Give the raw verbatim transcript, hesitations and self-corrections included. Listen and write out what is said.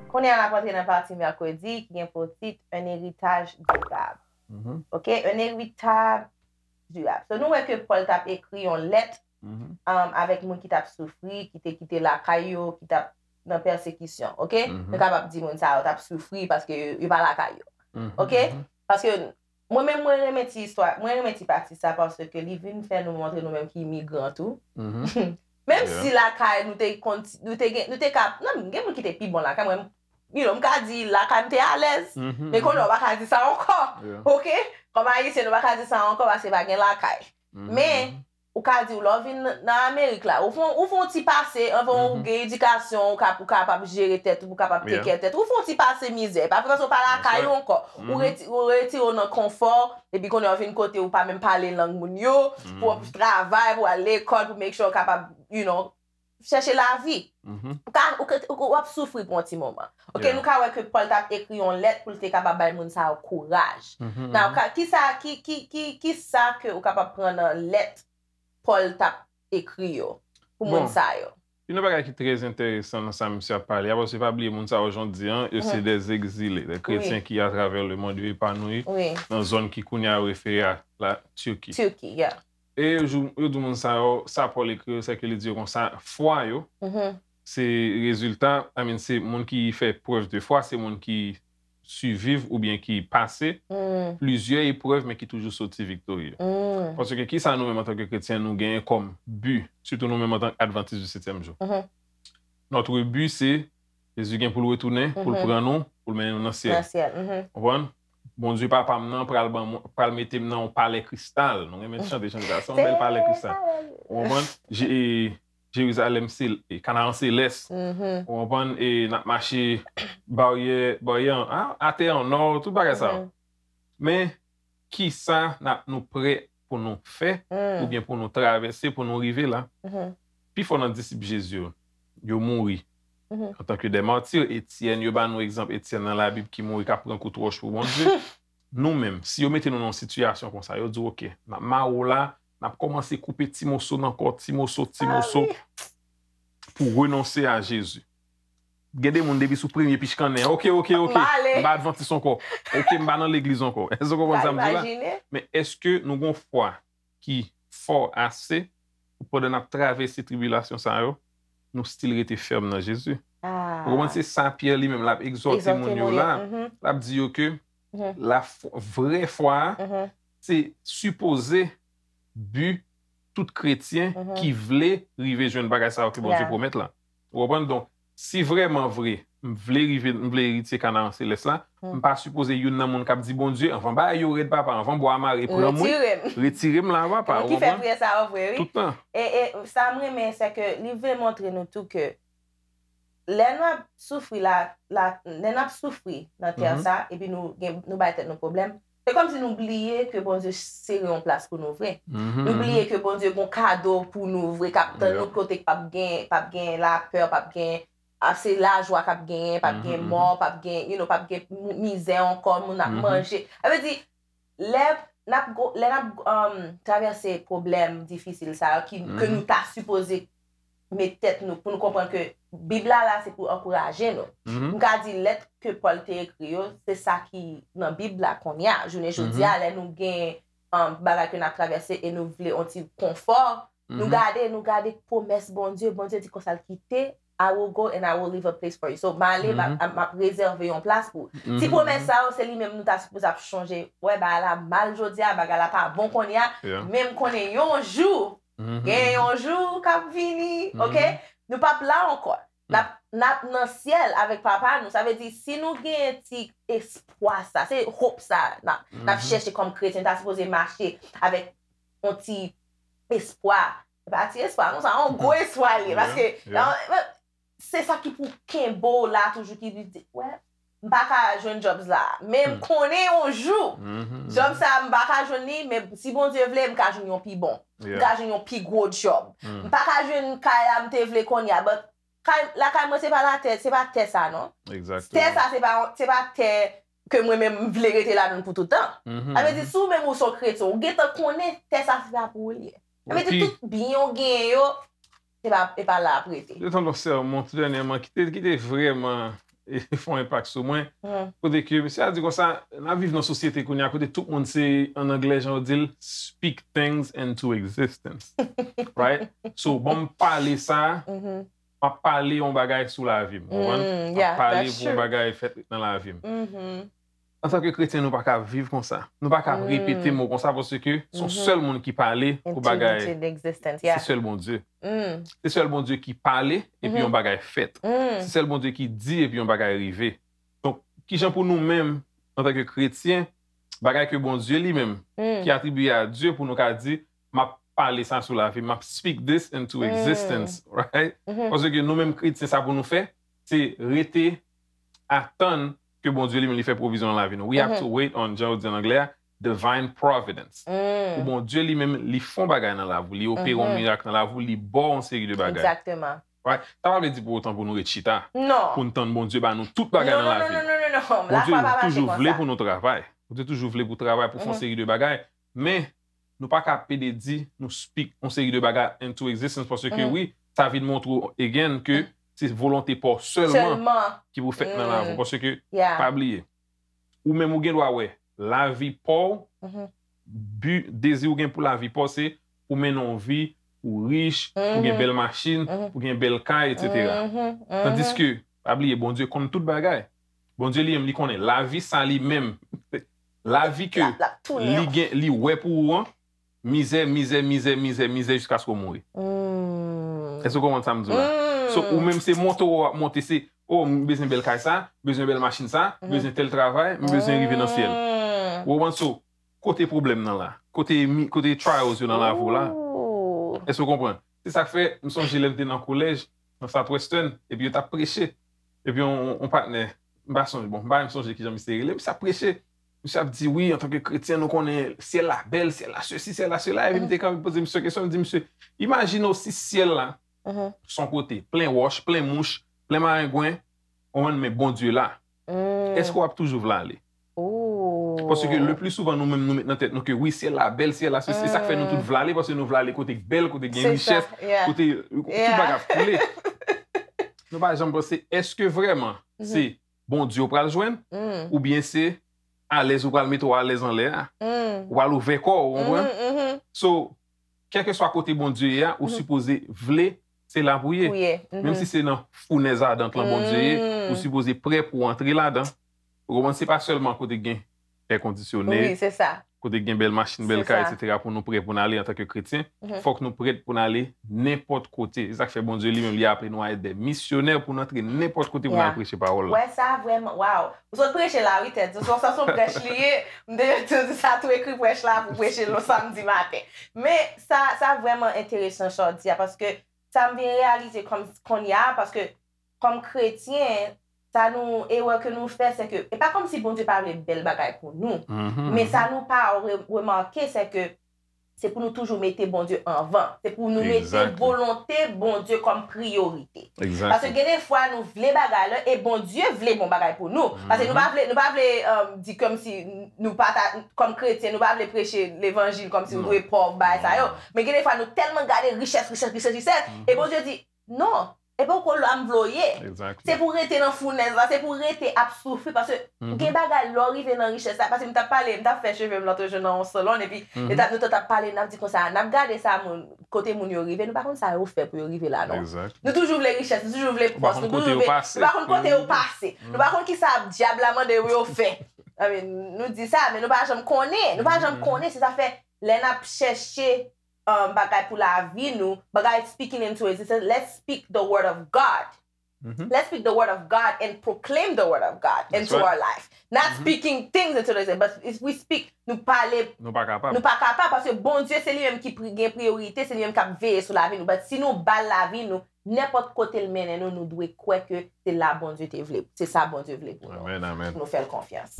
Kounye a n ap antre nan pati mèkredi ki gen pou tit Un héritage durable. Mhm, Ok, un héritage durable. So, nou wè ke Pòl t ap ekri yon lèt mhm. um, avèk moun ki t ap soufri, ki te kite lakay yo, ki t ap nan pèsekisyon. Ok? Mhm. Nou kapab di moun sa yo t ap soufri paske yo, yo pa lakay yo. Mhm, Ok? mhm. Paske mwen menm mwen renmen ti istwa, mwen renmen ti pati sa paske li vin fè nou montre nou menm ki imigran tou. Mhm. Menm Yeah. si lakay nou te konn nou te gen nou te ka nan gen moun ki te pi bon lakay mwen you know, m ka di lakay m te alèz. Mhm, Men konnen mhm. Ou pa ka di sa ankò. Yeah. Ok? Kòm ayisyen nou pa ka di sa ankò paske pa gen lakay. Mhm, Men mhm. Ou ka di w lè w vin nan- nan Amerik la, ou fon ou fon ti pase anvan ou Mhm. gen edikasyon, ou ka ou kapab jere tèt ou, ou kapab Yeah. take care tèt ou, ou fon ti pase mizè, pa vre paske w pa lakay ou ankò. Ou Mhm. reti- ou retire w nan konfò, epi konnen w vin kote ou pa menm pale lang moun yo, pou w Mhm, travay, pou w al lekòl, pou make sure w kapab, you know, chèche lavi. mhm. Ou ka ou, ka- ou, w ap soufri pou yon ti moman. Ok, Yeah. Nou ka wè ke Pòl t ap ekri yon lèt pou l te kapab bay moun sa yo kouraj. Mhm, Now, mhm. ka, ki sa ki, ki, ki, ki sa ke ou kapab pran nan lèt Pòl t ap ekri yo pou moun Bon. Sa yo? Yon bagay ki trè enteresan nan sa misye ap pale a, paske pa bliye moun sa yo jan w di an, yo se Mhm. des exilés, des chrétiens Wi. Ki à travers le monde yo epanoui Wi. Nan zòn ki kounye a yo refere a la Turquie. Turkey, yeah. E yo jou- yo di moun sa yo, sa Pòl ekri yo, se ke li di yo konsa, fwa yo, Mhm. se rezilta, I mean, se moun ki fè preuve de foi, se moun ki siviv oubyen ki pase Mm, plizyè eprèv, men ki toujou soti viktorye. mm. Paske ki sa nou menm antanke kretyen nou genyen kòm bi, sitou nou menm antanke advantis di setyèm jou? Mhm. Notre but, se Jezi gen pou l retounen, pou l Mhm. Pran nou, pou l mennen nou nan syèl. Nan syèl. Mhm. Konprann? Bondye papa m nan pral ban mwen- pral mete m nan yon palè kristal. Nou renmen chante chante sa. Se yon bèl palè kristal. Ou konprann? Je- e, Jerizalèm sel- e, Kanaran selès. Mhm. Ou konprann? E n ap mache baryè, baryè an- a- atè an nò, tout bagay sa yo. Mhm. Men, ki sa n ap nou prè pou nou fè, Mm, oubyen pou nou travèse, pou nou rive la? mhm. Pifò nan disip Jezi yo, yo mouri Mhm. antanke de mati. Etyèn, yo ba nou egzanp Etyèn nan Labib ki mouri k ap pran kout wòch pou Bondye. Nou menm, si yo mete nou nan yon sitiyasyon konsa, yo di w, "Oke, n ap mare w la, n ap kòmanse koupe ti moso nan kò, ti moso, ti Ah, moso, wi. Pou renonse a Jezi." Gen de moun depi sou premye pichkannen, "Oke, oke, oke, M ale. M pa advantis ankò. Oke, m pa nan legliz ankò." Èske w konprann sa m di w la? Imajine. Men èske nou gen fwa ki fò ase pou pandan n ap travèse tribilasyon sa yo, nou still rete fèm nan Jezi? Ah. Ou konprann? Se sa Pyè li menm l ap egzòte Egzòte moun yo moun la. yo, mhm. L ap di yo ke Mhm. la fwa- vrè fwa a, Mhm. se sipoze bi tout kretyen Mhm. Ki vle rive jwenn bagay sa yo ke Bondye Yeah. pwomèt la. Ou konprann? Donk, si vrèman vre, m vle rive, m vle eritye Kanaran selès la, Mhm. M pa sipoze youn nan moun k ap di, "Bondye, anvan bagay yo rèd, papa, anvan bwa a mare, pran mwen, Retire m. Retire m la, papa." Moun ki fè priyè sa yo vre, wi. Tout tan. E, e sa m renmen, se ke li vle montre nou tou ke lè n ap soufri la, la, lè n ap soufri nan tè Mhm. sa, epi nou, gen, nou bay tèt nou pwoblèm, se kòmsi nou bliye ke Bondye sere yon plas pou nou vre. Nou Mhm. Bliye ke Bondye gon kado pou nou vre, k ap tann Yeah. nou kote k p ap gen, p ap gen lapè, p ap gen, ap se lajwa k ap genyen, p ap gen Mhm, mò, p ap gen, you know, p ap gen mou- mizè ankò, moun ap Mhm. Manje. Sa vle di, lè n ap go- lè n ap um, travèse pwoblèm difisil sa yo ki, ke Mhm. nou ta sipoze met tèt nou pou nou konprann ke Bib la la se pou ankouraje nou. Mhm. M ka di lèt ke Pòl te ekri yo, se sa ki nan Bib la kounye a. Jounen jodi a, lè nou gen um, bagay ke n ap travèse e nou vle yon ti konfò, nou Mhm. Gade, nou gade pwomès Bondye. Bondye di konsa l kite, "I will go and I will leave a place for you." So, m ale, m ap- Mhm. m ap rezève yon plas pou ou. Ti Mhm. Pwomès sa yo, se li menm nou ta sipoze ap chonje. Wè, bagay la mal jodi a, bagay la pa bon kounye a. Yeah. Men m konnen yon jou, Mhm. Gen yon jou k ap vini, Mhm. oke? Nou p ap la ankò. N ap, n ap nan syèl avèk Papa nou. Sa vle di, si nou gen ti espwa sa, se hope sa n ap, n ap Mhm. chèche kòm kretyen, ta sipoze mache avèk yon ti espwa. Se pa ti espwa, non, sa yon gwo espwa li ye, Yeah, paske yeah. se sa ki pou kenbe w la toujou, ki di, wè, m pa ka jwenn jobs la, men m Hmm. konnen yon jou, Mhm, job mhm. Sa, m pa ka jwenn li, men si Bondye vle, m ka jwenn yon pi bon. M Yeah. ka jwenn yon pi gwo job. Hmm. M pa ka jwenn kay la m te vle kounye a, but kay, lakay mwen se pa latè, se pa tè sa, non. Exactement. Tè sa, se pa, se pa tè ke mwen menm m vle rete ladan l pou tout tan. Sa vle di, si w menm ou se yon kretyen, ou gentan konnen tè sa se pa pou ou li ye. Sa vle di, tout byen w genyen yo, se pa, e pa la ap rete. Yo tann yon sèmon tou dènyèman ki te, ki te vrèman e, fè yon enpak sou mwen. Kote ke misye a di konsa, n ap viv nan sosyete kounye a kote tout moun se, an anglè, jan yo di l, speak things into existence. Right? So, bon, m pale sa, m ap pale yon bagay sou lavi m, konprann? M ap pale pou yon bagay fèt nan lavi m. Antanke kretyen, nou pa ka viv konsa. Nou pa ka repete mo konsa paske se yon sèl moun ki pale pou bagay. Se sèl Bondye. Se sèl Bondye ki pale epi yon bagay fèt. Se sèl Bondye ki di epi yon bagay rive. Donk, kijan pou nou menm, antanke kretyen, bagay ke Bondye li menm, ki atribiye a Dye, pou nou ka di, m ap pale sa sou lavi m, m ap speak this into existence, right? Paske nou menm kretyen, sa pou nou fè, se rete atann ke Bondye li menm li fè pwovizyon nan lavi nou. We have to wait on, jan yo di an anglè a, divine providence. Pou Bondye li menm li fè yon bagay nan lavi w, li opere yon mirak nan lavi w, li ba w yon seri de bagay. Egzakteman. Right? Sa pa vle di pou otan pou nou ret chita. Non. Pou n tann Bondye ba nou tout bagay nan lavi n. Non, non, non, non, non, non. Bondye toujou vle pou nou travay. Bondye toujou vle pou travay, pou fè yon seri de bagay. Men, nou pa ka pede di, nou speak yon seri de bagay into existence, paske wi, sa vin montre w again ke se volonte pa w sèlman ki pou fèt nan lavi w. Paske, pa bliye, ou menm ou gen dwa wè, lavi pa w, bi, dezi ou gen pou lavi pa w, se pou mennen yon vi, pou rich, pou gen bèl machin, pou gen bèl kay, etsetera. Tandiske, pa bliye, Bondye konn tout bagay. Bondye li menm, li konnen lavi sa li menm, lavi ke li gen, li wè pou ou an, mizè, mizè, mizè, mizè, mizè jiskaske w mouri. Èske w konprann sa m di w la? So, ou menm se monte w ap monte, se, oh, m bezwen bèl kay sa, m bezwen bèl machin sa, m bezwen tèl travay, m bezwen rive nan syèl. Ou konprann? So, kote pwoblèm nan la? Kote mi-, kote trials yo nan lavi w la? Èske w konprann? Se sa k fè, m sonje lè m te nan kolèj, nan Southwestern, epi yo t ap preche. Epi yon, yon patnè, m pa sonje, bon, m pa menm sonje kijan misye rele, misye ap preche. Misye ap di, wi, antanke kretyen, nou konnen syèl la bèl, syèl la sesi, syèl la sela. Epi m te kanpe poze misye kesyon, m di, misye, imajine w si syèl la, s on kote, plen wòch, plen mouch, plen marengwen, w konprann, men Bondye la. Èske w ap toujou vle ale? Paske le pli souvan nou menm nou met nan tèt nou ke wi, syèl la bèl, syèl la sesi, se sa k fè nou tout vle ale, paske nou vle ale kote k bèl, kote k gen richès, kote tout bagay ap koule. Nou pa janm panse, èske vrèman se Bondye w pral jwenn, oubyen se alèz ou pral mete w alèz anlè a, ou pral ouvè kò w, ou konprann? So, kèlkeswa kote Bondye ye a, ou sipoze vle se la pou ye. Menm si se nan founèz adan lan Bondye ye, ou sipoze prè pou w antre ladan. Ou konprann? Se pa sèlman kote gen èkondisyone, kote gen bèl machin, bèl kay, etsetera, pou nou prè pou n ale antanke kretyen. Fòk nou prèt pou n ale nenpòt kote. Se sa k fè Bondye li menm, li aple nou a èt dè misyonè pou n antre nenpòt kote pou n al preche pawòl la. Wè sa vrèman, waw. Ou sot preche la, wi, tèt. Se yon, se yon prèch li ye. M te di sa tou, ekri prèch la pou preche l yon samdi maten. Men sa, sa vrèman enteresan sa w di a, paske sa m vin reyalize kòm, kounye a, paske kòm kretyen, sa nou, erè ke nou fè, se ke, e pa kòmsi Bondye pa vle bèl bagay pou nou, men sa nou pa re-, remake, se ke se pou nou toujou mete Bondye anvan. Se pou nou mete volonte Bondye kòm priyorite. Paske gen de fwa nou vle bagay la e Bondye vle bon bagay pou nou. Paske nou pa vle, nou pa vle, um, di kòmsi nou pa ta, kòm kretyen, nou pa vle preche levanjil kòmsi nou dwe pòv, bagay sa yo. Men gen de fwa nou tèlman gade richès, richès, richès, richès, e Bondye di, non, e poko la m vle w ye. Se pou w rete nan founèz la, se pou w rete ap soufri, paske gen bagay lè w rive nan richès la, paske m t ap pale, m t ap fè cheve m lòt jou nan yon salon, epi e t ap, nou t ap pale, n ap di konsa, n ap gade sa moun, kote moun yo rive, nou pa konn sa yo fè pou yo rive la, non. Nou toujou vle richès, nou toujou vle pòs, nou toujou vle, nou pa konn kote yo pase, nou pa konn kisa dyab la mande yo fè. I mean, nou di sa, men nou pa janm konnen, nou pa janm konnen, se sa fè, lè n ap chèche um, bagay pou lavi nou, bagay speaking into existence. Let's speak the word of God. Let's speak the word of God and proclaim the word of God into our life. Not speaking things into existence, but if we speak, nou pale, nou pa kapab. Nou pa kapab, paske Bondye se li menm ki pri-, gen priyorite, se li menm k ap veye sou lavi nou. But si nou ba l lavi nou, nenpòt kote l mennen nou, nou dwe kwè ke se la Bondye te vle, se sa Bondye vle pou nou. Pou nou fè l konfyans.